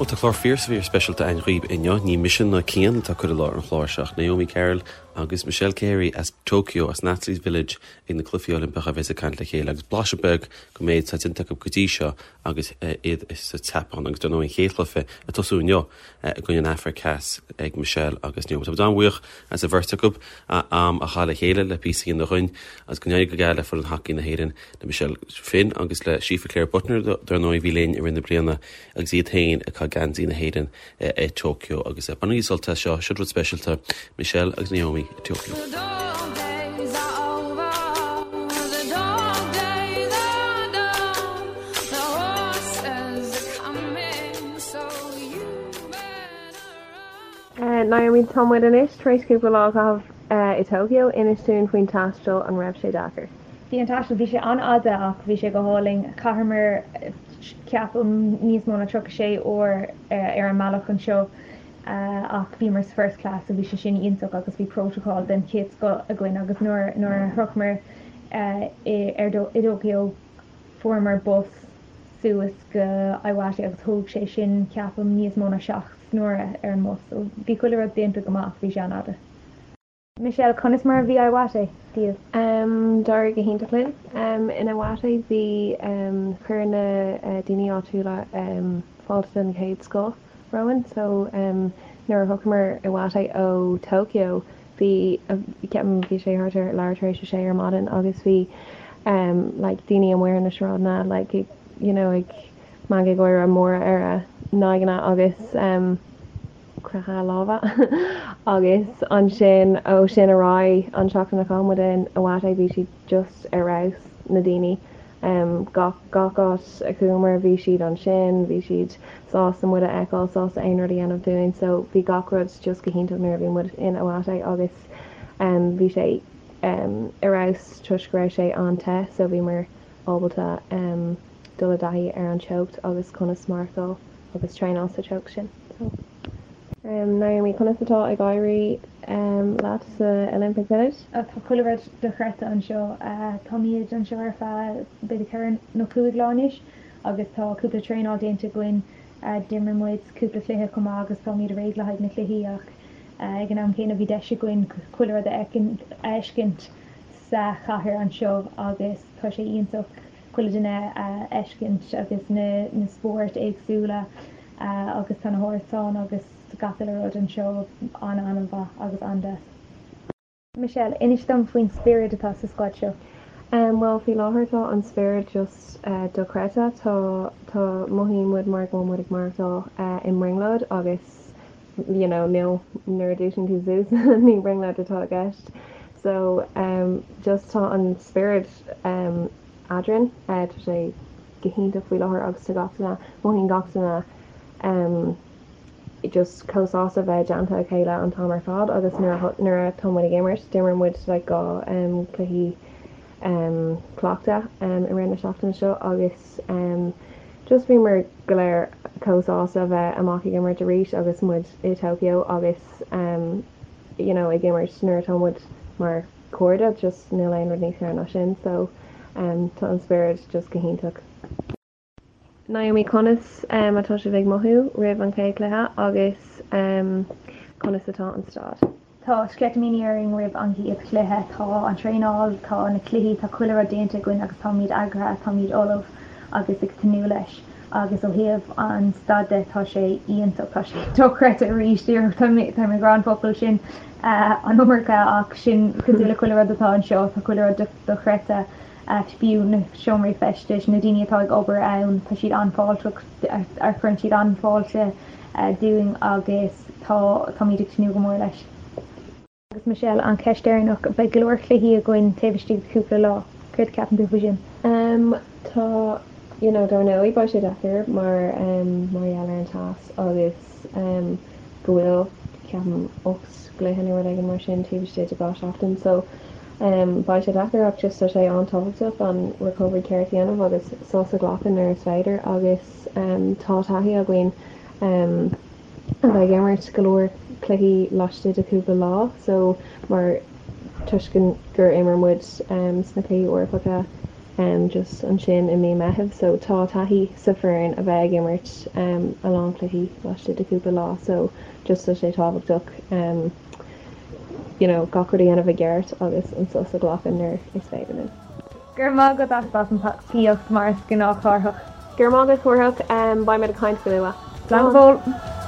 Bhuel, tá clár fíor fíor speisialta againn dhaoibh inniu. Ní mise ná Cian atá ag cur i láthair an chláir seo ach Naomi Carroll agus Michelle Carey as Tokyo, as an Athletes Village ag na Cluichí Oilimpeacha a bheas ag caint le chéile agus blaiseadh beag den méid atá déanta acu go dtí seo agus iad sa tSeapáin agus dar ndóigh an chéad chluiche ag tosú inniu i gcoinne an Afraic Theas ag Michelle agus Naomi. Tá muid an-bhuíoch as an bheirt acu am a chaitheamh le chéile le píosa a dhéanamh dhúinn agus go n-éirí go geal le foireann hacaí na hÉireann le Michelle Finn agus le Síofra Clare Butner dar ndóigh a bhí linn i rith na bliana agus iad féin ag caitheamh geansaí na hÉireann i Tokyo agus bainigí sult as seo, seo rud speisialta Michelle agus Naomi i Tokyo. Naomi, tá muid anois tar éis cúpla lá a chaitheamh i Tokyo. Inis dúinn faoin taisteal, an raibh sé deacair? Bhí an taisteal, bhí sé an-fhada ach bhí sé go hálainn. Chaitheamar, ceapaim, níos mó ná 36 uair ar an mbealach anseo ach bhíomar sa first class so bhí sé sin iontach agus bhí protocol den chéad scoth againn agus nuair nuair a shroicheamar i ar i dTokyo fuaireamar bus suas go Iwate agus thóg sé sin ceapaim níos mó ná 7 n-uaire ar an mbus so bhí chuile rud déanta go maith ach bhí sé an-fhada. Michelle, Conas mar a bhí Iwate daoibh? D'éirigh go hiontach linn in Iwate. Bhí, chuir na daoine áitiúla fáilte den chéad scoth romhainn. So nuair a shroicheamar Iwate ó Tokyo bhí, ceapaim bhí sé thart ar leathuair tar éis a sé ar maidin agus bhí like daoine amuigh ar na sráideanna like ag you know ag meangadh gáire móra ar a n-aghaidheanna agus croitheadh lámha agus ansin ó sin ar aghaidh an tseachtain a chaith muid in Iwate bhí siad just ar fheabhas na daoine gach gach áit a chuamar bhí siad ansin bhí siad sásta muid a fheiceáil sásta aon rud a dhéanamh dúinn so bhí gach rud just go hiontach nuair a bhí muid in Iwate agus bhí sé ar fheabhas toisc go raibh sé an-te so bhíomar ábalta dul i dtaithí ar an teocht agus conas maireachtáil agus traenáil sa teocht sin. So. Naomi, conas atá ag éirí leat sa Olympic Village? Tá chuile rud dochreidte anseo. Táimid anseo ar feadh b'fhéidir ceithre nó cúig lá anois agus tá cúpla traenáil déanta againn. D'imir muid cúpla cluiche chomh maith agus táimid réidh le haghaidh na cluichí ach ag an am céanna bhí deis againn chuile rud a fheiscint sa chathair anseo agus tá sé iontach. chuile duine a fheiscint agus na spóirt éagsúla agus tá na hárasáin agus gach uile rud anseo an-an-mhaith agus an-deas. Michelle, Inis dom faoin spiorad atá sa squad seo. Bhuel, faoi láthair tá an spiorad just dochreidte. Tá, tá, mothaíonn muid mar go bhfuil muid ag maireachtáil i mbrionglóid agus you know níl, nuair a dhúisíonn tú suas ní brionglóid atá i gceist. So just tá an spiorad eadrainn. Tá sé go hiontach faoi láthair agus tá gach duine, mothaíonn gach duine just chomh sásta bheith i dteannta a chéile an t-am ar fad agus nuair atá muid ag imirt, d'imir muid like 2 cluichí cleachta i rith na seachtaine seo agus just bhíomar go léir chomh sásta bheith amach ag imirt arís agus muid i Tokyo agus you know ag imirt nuair atá muid mar cairde, just níl aon rud níos fearr ná sin so tá an spiorad just go hiontach. Naomi, conas atá sibh ag mothú roimh an chéad chluiche agus conas atá an staid? Tá sceitimíní orainn roimh an gcéad chluiche. Tá an traenáil, tá na cluichí, tá chuile rud déanta againn agus táimid eagraithe, táimid ullamh agus ag tnúth leis. Agus ó thaobh an staid de, tá sé iontach, tá sé dochreidte arís, díreach tá mé ag rá an focal sin an iomarca ach sin cosúil le chuile rud atá anseo, tá chuile rud dochreidte, fiú na seomraí feistis, na daoine atá ag obair ann, tá siad an-fháilteach, cuireann siad an-fháilte dúinn agus tá, táimid ag tnúth go mór leis. Agus Michelle, an cheist dheireanach, beidh go leor cluichí againn taobh istigh de chúpla lá, céard a cheapann tú faoi sin? Em, tá, you know, dar ndóigh beidh sé deacair mar, em, mar gheall ar an teas agus, em, go bhfuil, ceapaim, 8 gcluiche nó rud éigin mar sin taobh istigh de 2 seachtain so, em, beidh sé deacair ach just tá sé an-tábhachtach an recovery ceart a dhéanamh agus sos a ghlacadh nuair is féidir agus, em, tá taithí againn, em, a bheith ag imirt go leor cluichí laistigh de chúpla lá so mar toisc gur imir muid sna cluichí Eorpacha. Just ansin i mí Meitheamh so tá taithí sa foireann a bheith ag imirt a lán cluichí laistigh de cúpla lá so just tá sé tábhachtach you know gach rud a dhéanamh i gceart agus an sos a ghlacadh nuair is féidir linn. Go raibh maith agat as an tacaíocht mar is gnách Cárthach. Go raibh maith agat Cárthach, beidh muid ag caint go luath. Slán go fóill.